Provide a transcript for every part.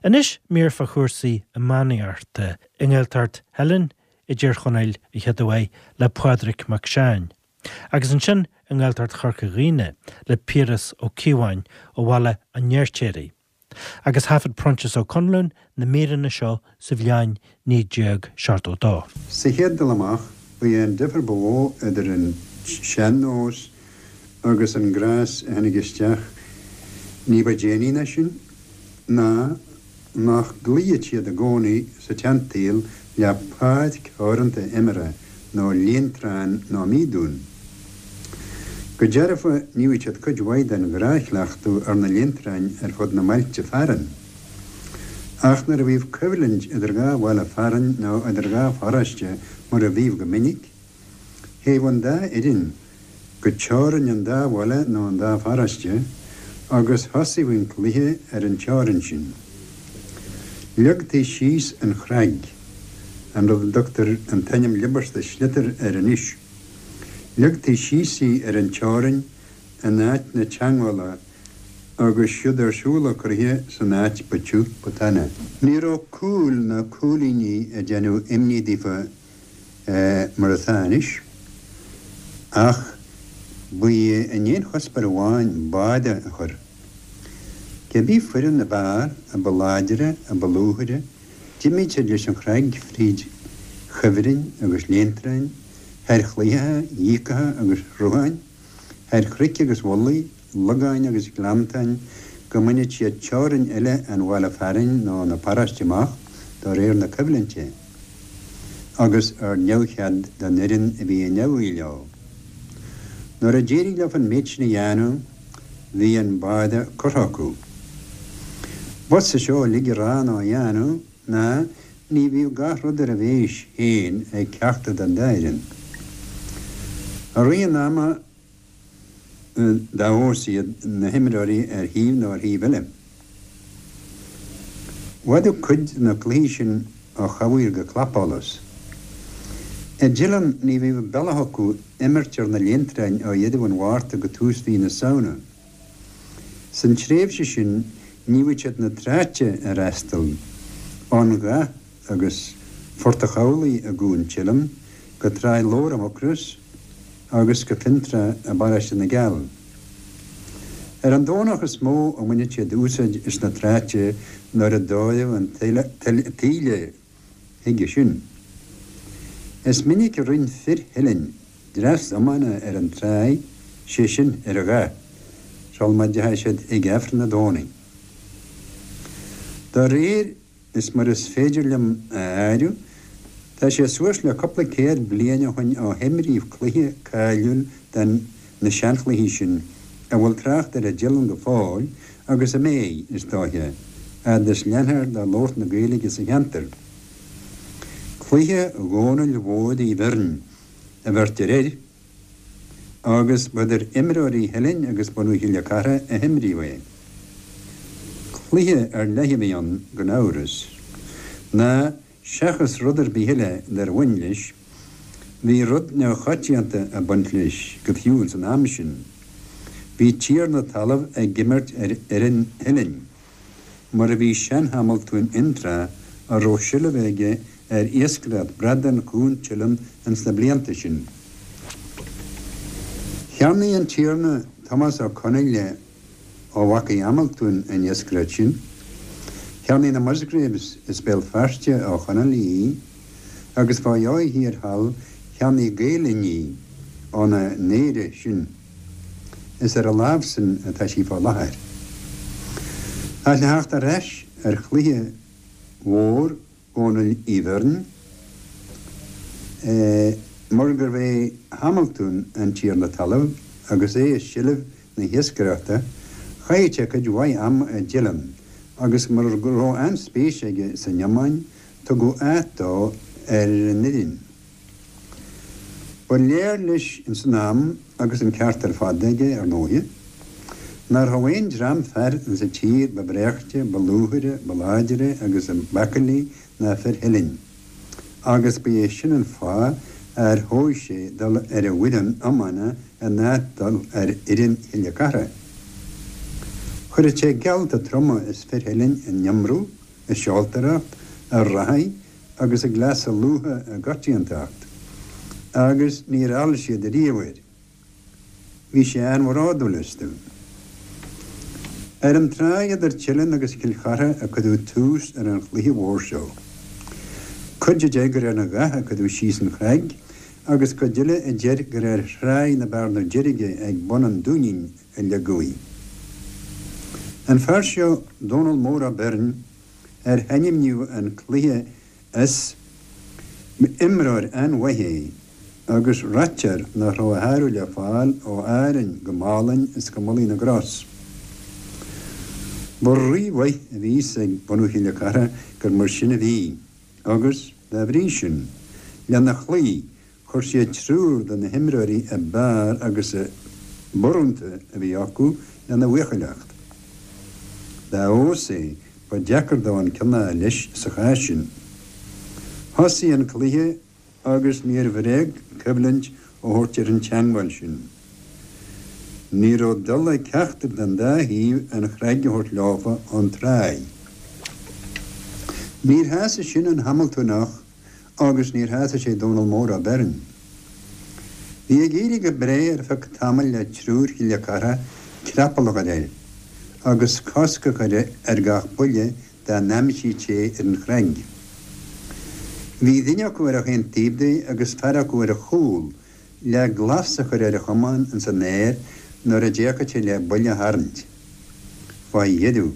Anois mír fá chúrsaí iománaíochta i nGaeltacht Theilinn i dTír Chonaill an chéad uair le Pádraig Mac Seáin. Agus ansin i nGaeltacht Chorca Dhuibhne le Piaras Ó Cíobháin ó Bhaile an Fheirtéaraigh. Agus thaifead Proinsias Ó Conluain na míreanna seo sa bhliain 1972. Sa chéad dul amach, ba é an difear ba mhó idir an sean-nós agus an gnás a tháinig isteach ní ba déanaí ná sin, ná nach gcloíodh siad i gcónaí sa tseansaol le páirc theoranta imeartha nó líontrán nó mídún. Go dearfa ní bhíodh siad cuid mhaith den ghnáthchleachtadh ar na líontráin ar fud na mbailte fearainn. Ach nuair a bhíodh coimhlint idir dhá bhaile fearainn nó idir dhá pharóiste mar a bhíodh go minic, Théadh an dá fhoireann go teorainn an dá bhaile nó an dá pharóiste agus thosaíodh an cluiche ar an teorainn sin. Leagtaí síos an chreag, an rud a dtugtar an t-ainm liobáiste sliotar air anois. Leagtaí síos í ar an teorainn in áit na teangmhála agus siúd ar siúl an cluiche san áit ba tiubh ba tana. Ní raibh cúil ná cúilíní ag déanamh imní daofa mar atá anois, ach ba é a n-aon chuspóir amháin báide a chur. Cibé foireann ab fhearr, a ba láidre, a ba lúthaire, d'imíodh siad leis an chreag fríd chuibhrinn agus líontráin, thar chlaítheacha, dhíocacha agus shrutháin, thar chnoic agus mhullaigh, logáin agus gleanntáin, go mbaineadh siad teorainn eile an bhaile fearainn nó na paróiste amach, do réir na coimhlinte, agus ar neamhchead don fhoireann a bhí in aghaidh leo. Nuair a d'éirigh leo an méid sin a dhéanamh, bhí an báide curtha acu. B'fhusa seo uilig a rá ná a dhéanamh, ná ní bhíodh gach rud ar a bhéis féin ag ceachtar den dá fhoireann. I rith an ama dá fheabhas iad na himreoirí ar thaobh nó ar thaobh eile. Bhfadadh cuid de na cluichí sin ó chamhaoir go clapsholas. I dTeileann ní bhíodh bealach acu imirt ar na líontráin ó dheireadh an Mhárta go tús mhí na Samhna. San tréimhse sin ní bhíodh siad na tráite a fhreastal, ón Ghath agus Phort a' Chabhlaigh i gCuan Teileann go Tráigh Lobhar i Mucros agus go Fionntrá i bParóiste na gCeall. Ar an Domhnach is mó a bhaineadh siad úsáid as na tráite nuair a d'fhóireadh an taoille chuige sin. Is minic a rinn fir Theilinn dreas iomána ar an tráigh, sé sin, ar an Ghath, sul má dteachaidh siad ag Aifreann an Domhnaigh. Dá réir is mar is féidir liom a áireamh, tá sé suas le cúpla céad bliain ó shoin ó himríodh cluiche cáiliúil den na seanchluichí sin a bhfuil trácht air i dTeileann go fóill agus a mbeidh, is dóiche, fhad is leanfar de labhairt na Gaeilge sa cheantar. Cluiche Dhónaill Mhóir Uí Bhirn a bheirtear air agus ba idir imreoirí Theilinn agus bunadh Chille Cartha a himríodh é. Cluiche ar leith a bhí ann, gan amhras, ná Seachas rud ar bith eile dar bhain leis, bhí rud neamhchoitianta ag baint leis, go fiú ins an am sin. Bhí tiarna talaimh ag imirt ar fhoireann Theilinn, mar a bhí sean-Hamaltún Fhionntrá a raibh seilbh aige ar iascaireacht bradán Chuan Teileann ins na blianta sin. Cheannaigh an Tiarna Tomás Ó Conaile ó mhacaí Hamaltúin an iascaireacht sin. Cheannaigh na Musgraves as Béal Feirste ó Chonallaigh í, agus fá dheoidh thiar thall cheannaigh Gael Linn í óna n-aoire sin. Is ar a lámhsan atá sí fá láthair. Ach le theacht ar ais ar chluiche mhór Dhónaill Uí Bhirn, mar gurbh é Hamaltún an tiarna talaimh agus é i seilbh na hiascaireachta, chaitheadh sé cuid mhaith ama i dTeileann agus mar go raibh an-spéis aige san iomáin, tugadh áit dó ar an fhoireann. Ba léir leis ins an am, agus an ceart ar fad aige, ar ndóighe, nár raibh aon dream fear ins an tír ba bhréachtaí, ba lúthaire, ba láidre agus b'acailí ná fir Theilinn, agus ba é sin an fáth ar thogh sé dul ar an bhfoireann iomána in áit dul ar fhoireann Chille Cartha. Chuireadh sé geallta troma is fir Theilinn in iomramh. a seoltóireacht, a reathaí agus a gcleasa lútha i gcoitiantacht, agus níor fheall siad ariamh air. Bhí sé an-bhródúil astu. Ar an tráigh idir Teileann agus Cill Chartha a cuireadh tús ar an chluiche mhór seo. Cuid a deir gur ar an Ghath a cuireadh síos an chreag agus cuid eile a deir gur ar thráigh na Bearna Deirge ag bun an Dúinín a leagadh í. An fear seo, Dónal Mór Ó Beirn, ar hainmníodh an cluiche as, b'imreoir an-mhaith é agus ráitear nach raibh a shárú le fáil ó Árainn go Málainn is go Mullaigh na gCros. Ba rí-mhaith a bhí fhios ag bunadh Chille Cartha gur mar sin a bhí agus, dá bhrí sin, lena chloí Chuir siad triúr de na himreoirí ab fhearr agus ab urrúnta a bhí acu lena bhuachailleacht. Dá fheabhas é, ba deacair dó an ceann a fháil leis sa chás sin. Thosaigh an cluiche agus níor bhréag coimhlint a thabhairt ar an teangmháil sin. Ní raibh dul ag ceachtar den dá thaobh an chreag a thabhairt leofa ón tráigh. Níor shásaigh sin an Hamaltúnach agus níor shásaigh sé Dónal Mór Ó Beirn. Bhí ag éirí go breá ar feadh tamaill le triúr Chille Cartha creapall a chur air agus cosc a chur ar gach buille dá n-aimsítí ar an chreag. Bhí duine acu ar chaon taobh de agus fear acu ar a chúl le glas a chur ar a chamán ins an aer nuair a d'fhéachfadh sé le buille a tharraingt. Fá dheireadh,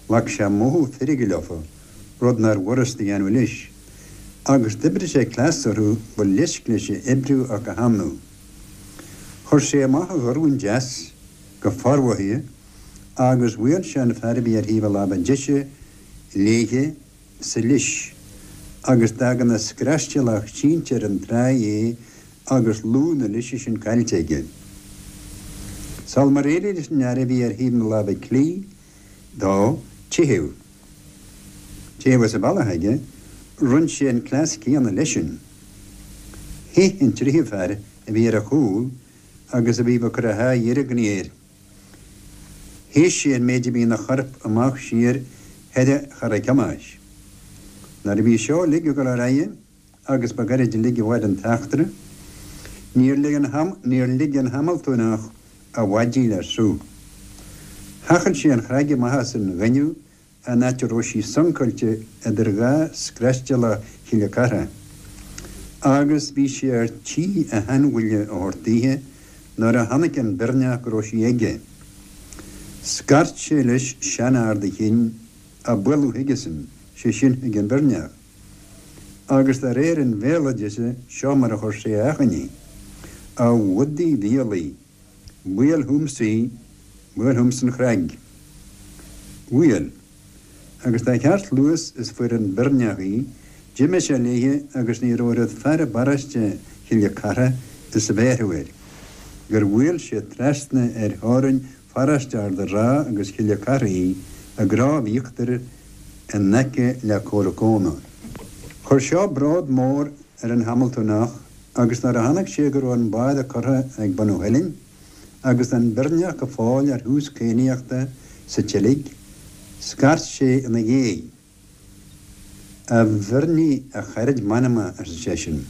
ghlac sé mothú feirge leofa, rud nár bhfurasta a dhéanamh leis, agus d'oibrigh sé cleas orthu ba leisc leis a oibriú ach a shamhlú. Chuir sé amach a dhorn deas go formhothaithe agus bhuail sé an fear a bhí ar thaobh a láimhe deise léithe sa lios agus d'fhág ina screastealach sínte ar an tráigh é agus lúth na lise sin caillte aige. Sul mar éirigh leis an fhear a bhí ar thaobh na láimhe clí dó teitheadh, teitheadh as an bhealach aige, rinn sé an cleas céanna leisean. Theith an tríú fear a bhí ar a chúl agus a bhí ag cur a shá dheirgne air. Théis sé an méid a bhí ina chorp amach siar thoir Charraig Thomáis. Nuair a bhí seo uilig ag dul ar aghaidh, agus ba ghairid uilig a mhair an t-eachtra, níor lig an níor lig an Hamaltúnach a mhaidí le sruth. Thochail sé an chreag amach as an ghaineamh an áit a raibh sí suncáilte idir dhá screastealach Chille Cartha, agus bhí sé ar tí a sheanbhuille a thabhairt daoithe nuair a chonaic an Beirneach go raibh sí aige. Scairt sé leis seanfhear de chinn a bualadh chuigesan, sé sin chuig an Bheirneach. Agus de réir an bhéaloideasa, seo mar a chuir sé a achainí, A bhudaí mhiolaigh, Buail chughamsa í, buail chughamsa an chreag. Bhuail. Agus dá cheart luas is fuair an Beirneach í, d'imigh sé léithe agus ní raibh oiread fear i bparóiste Chille Cartha is a bhéarfadh air, gur bhuail sé trasna ar theorainn pharóiste Ard a' Rátha agus Chille Cartha í i gCrobh Íochtair in aice le Comhrac Eóna. Chuir seo bród mór ar an Hamaltúnach agus nuair a chonaic sé go raibh an báire curtha ag bunadh Theilinn agus an Beirneach go fóill ar thús cadhnaíochta sa tseilg, scairt sé ina dhiaidh. A Bheirnigh, a charaid m'anama, arsa seisean,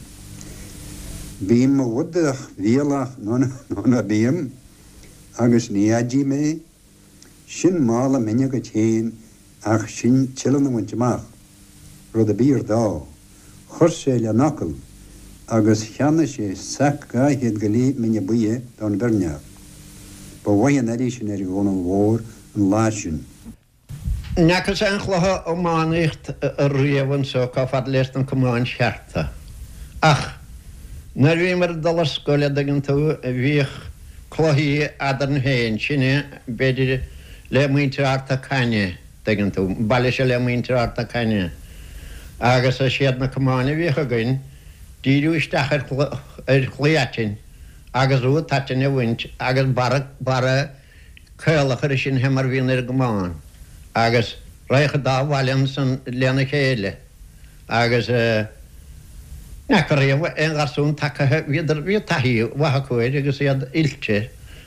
bím mo bhodach mhiolach nó ná bím, agus ní fheadfaidh mé Sin mála mine dhuit féin ach sin Teileann a bhaint amach, rud a b'fhíor dó. Chuir sé lena fhocal agus cheannaigh sé sac 200 go leith mine buidhe don Bheirneach. Ba mhaith an airí sin ar Dhónal Mhór an lá sin. N'fheacas aon chluiche iománaíocht riamh anso chomh fada leis na camáin chearta. Ach nuair a bhíomar ag dul ar scoil, a' dtuigeann tú, bhíodh cluichí eadrainn féin, sinne, b'fhéidir, le muintir Ard na Caithne, dtuigeann tú, an baile seo le muintir Ard na Caithne. Agus is iad na camáin a bhíodh againn, díriú isteach ar ar chlaí aitinn agus rud aitinn a bhaint agus barra, barra caol a chur sin fé mar a bhíonn ar an gcamán agus raghadh an dá bhaile ansan lena chéile agus n'fheaca riamh aon gharsún tacaithe, bhíodar, bhí taithí mhaith acu air agus iad oilte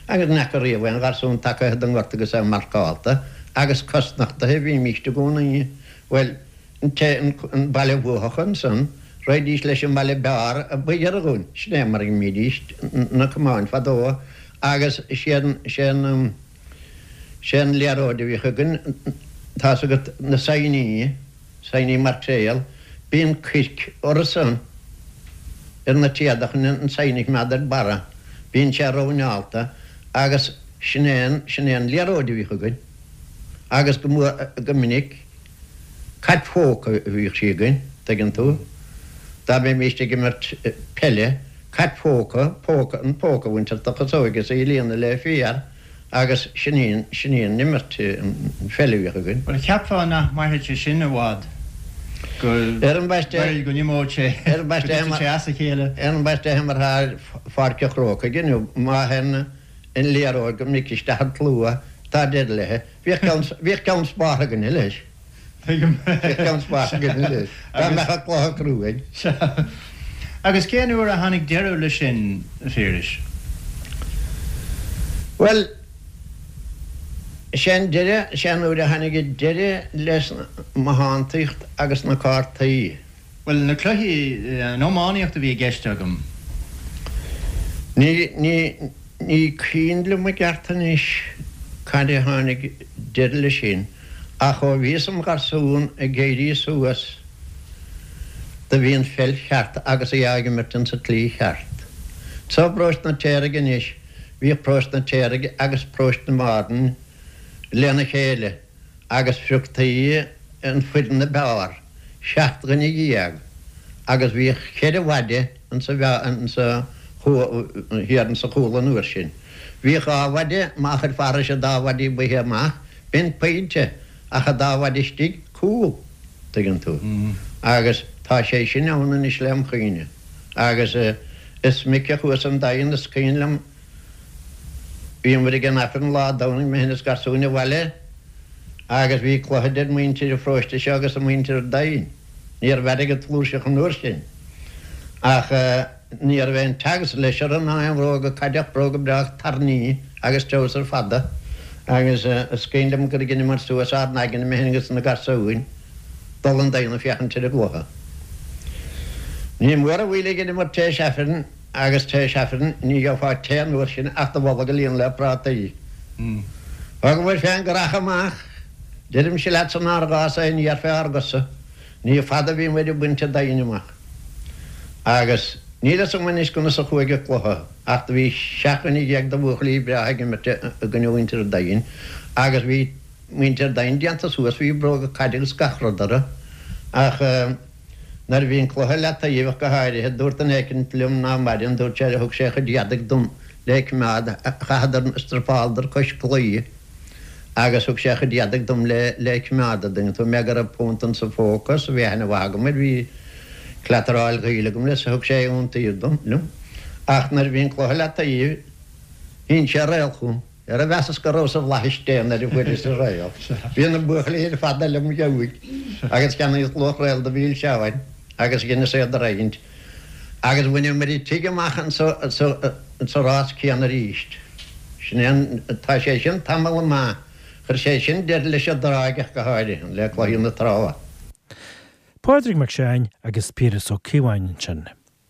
agus n'fheaca riamh aon gharsún tacaithe den ngort agus é marcálta agus cosnochtaithe a bhímíst i gcónaí. Bhuel, an té, an baile a bhuafadh ansan, raghaidís leis an mbaile b'fhearr a ba ghiorra dhúinn. Sin é mar a imrídís na camáin fadó agus sé an, sé an, sé an liathróid a bhíodh againn, tá's agat, na saighní, saighní mairtéal, bíonn coirc orthu san, ar na téada chun an saighne a choimeád ar barra, bíonn sé roinneálta agus sin é an, sin é an liathróid a bhíodh againn agus go mór, go minic, cat phóca a bhíodh sí againn, tuigeann tú, dá mbeimíst ag imirt peile, cat phóca, póca, an póca a bhaint as do chasóig is í a líonadh le féar agus sin í an, sin í an imirt, an pheil a bhíodh againn. Bhuel, cheapfá nach mairfeadh sé sin i bhfad, go, Ar an mbaiste, go n-imeodh sé, ar an go dtitfeadh sé as a chéile. Ar an mbaiste mar atá ar Pháirc an Chrócaigh inniu, má théann an liathróid go minic isteach i tslua, tá deireadh léi. Bhíodh ceann, bhíodh ceann spártha againne leis. Tuigim. Bhíodh ceann spártha againne leis. Dá mbeadh an cluiche cruaidh. Sea. Agus cén uair a tháinig deireadh leis sin, a Phiarais? Bhuel, sé an deireadh, sé an uair a tháinig deireadh leis an mbothántaíocht agus na cártaí. Bhuel, na cluichí, an iománaíocht a bhí i gceist agam. Ní, ní, ní cuimhin liom i gceart anois cad é a tháinig deireadh leis sin, ach ó bhíos im gharsún ag éirí suas do bhí an pheil cheart agus í á imirt insa tslí cheart. Anso i bparóiste na Téaraigh anois, bhíodh paróiste na Téaraigh agus paróiste na Bhearna lena chéile. agus phrioctaí an foireann ab fhearr, 17 dhuine, agus bhíodh cheithre mhaide insa insa thiar insa chúl an uair sin. Bhíodh dhá mhaide, má chuirfeá thairis an dá mhaide baoithe amach, b'in pointe, ach an dá mhaide istigh, cúl, tuigeann tú. Agus tá sé sin ann anois lem chuimhne. Agus is minic a chuas 'on Daingean, is cuimhin liom, Bhíomar ag an Aifreann lá Domhnaigh, mé féin is garsúin abhaile agus bhí cluiche idir muintir an pharóiste seo agus muintir an Daingin. Ní raibh airgead flúirseach an uair sin ach ní raibh aon teaghais leis orthu ná aon bhróga caide ach bróga breá tairní agus treabhsar fada agus is cuimhin liom gur dheineamar suas ár n-aigne, mé féin agus na garsúin, dul 'on Daingean ag féachaint ar an gcluiche. Ní mór an mhoill a dheineamar tar éis Aifrinn. Agus tar éis Aifrinn ní gheofá tae an uair sin ach do bholg a líonadh le prátaí. Thógamair fén gcurach amach, deirimse leatsa nár ghás aon fhéar fé ár gcosa. Ní fada a bhí muid ag baint an Daingin amach. Agus níl fhios agam anois conas a chuaigh an cluiche, ach do bhí 17 dhuine de bhuachaillí breátha ag imirt i gcoinne mhuintir an Daingin, agus bhí muintir an Daingin déanta suas, bhí bróga caide agus gach rud orthu, ach. Nuair a bhí an cluiche leataobh ach go háirithe, dúirt duine éicint liom ná maireann, dúirt sé, thug sé a chuid éadaigh dom le coimeád, chaitheadar, strapáladar cois claí agus thug sé a chuid éadaigh dom le le coimeád, a' dtuigeann tú mé, go raibh punt insa phóca 's bhí aithne mhaith agam air, bhí cleataráil ghaoil agam leis, thug sé i iontaoibh dom, liom. Ach nuair a bhí an cluiche leataobh, shín sé réal chugam. Ara mheasas go rabhas i bhflaithis Dé nuair a fuaireas an réal. Bhí na buachaillí ar fad lem ghiúig agus cheannaíos luach réal do mhilseáin agus dheineas iad a roinnt agus bhaineamair an tigh amach insa rás céanna arís. Sin é an, tá sé sin tamall maith, chuir sé sin deireadh leis an dtráigh ach go háirithe, le cluichí na trá. Pádraig Mac Seáin agus Piaras Ó Cíobháin ansin.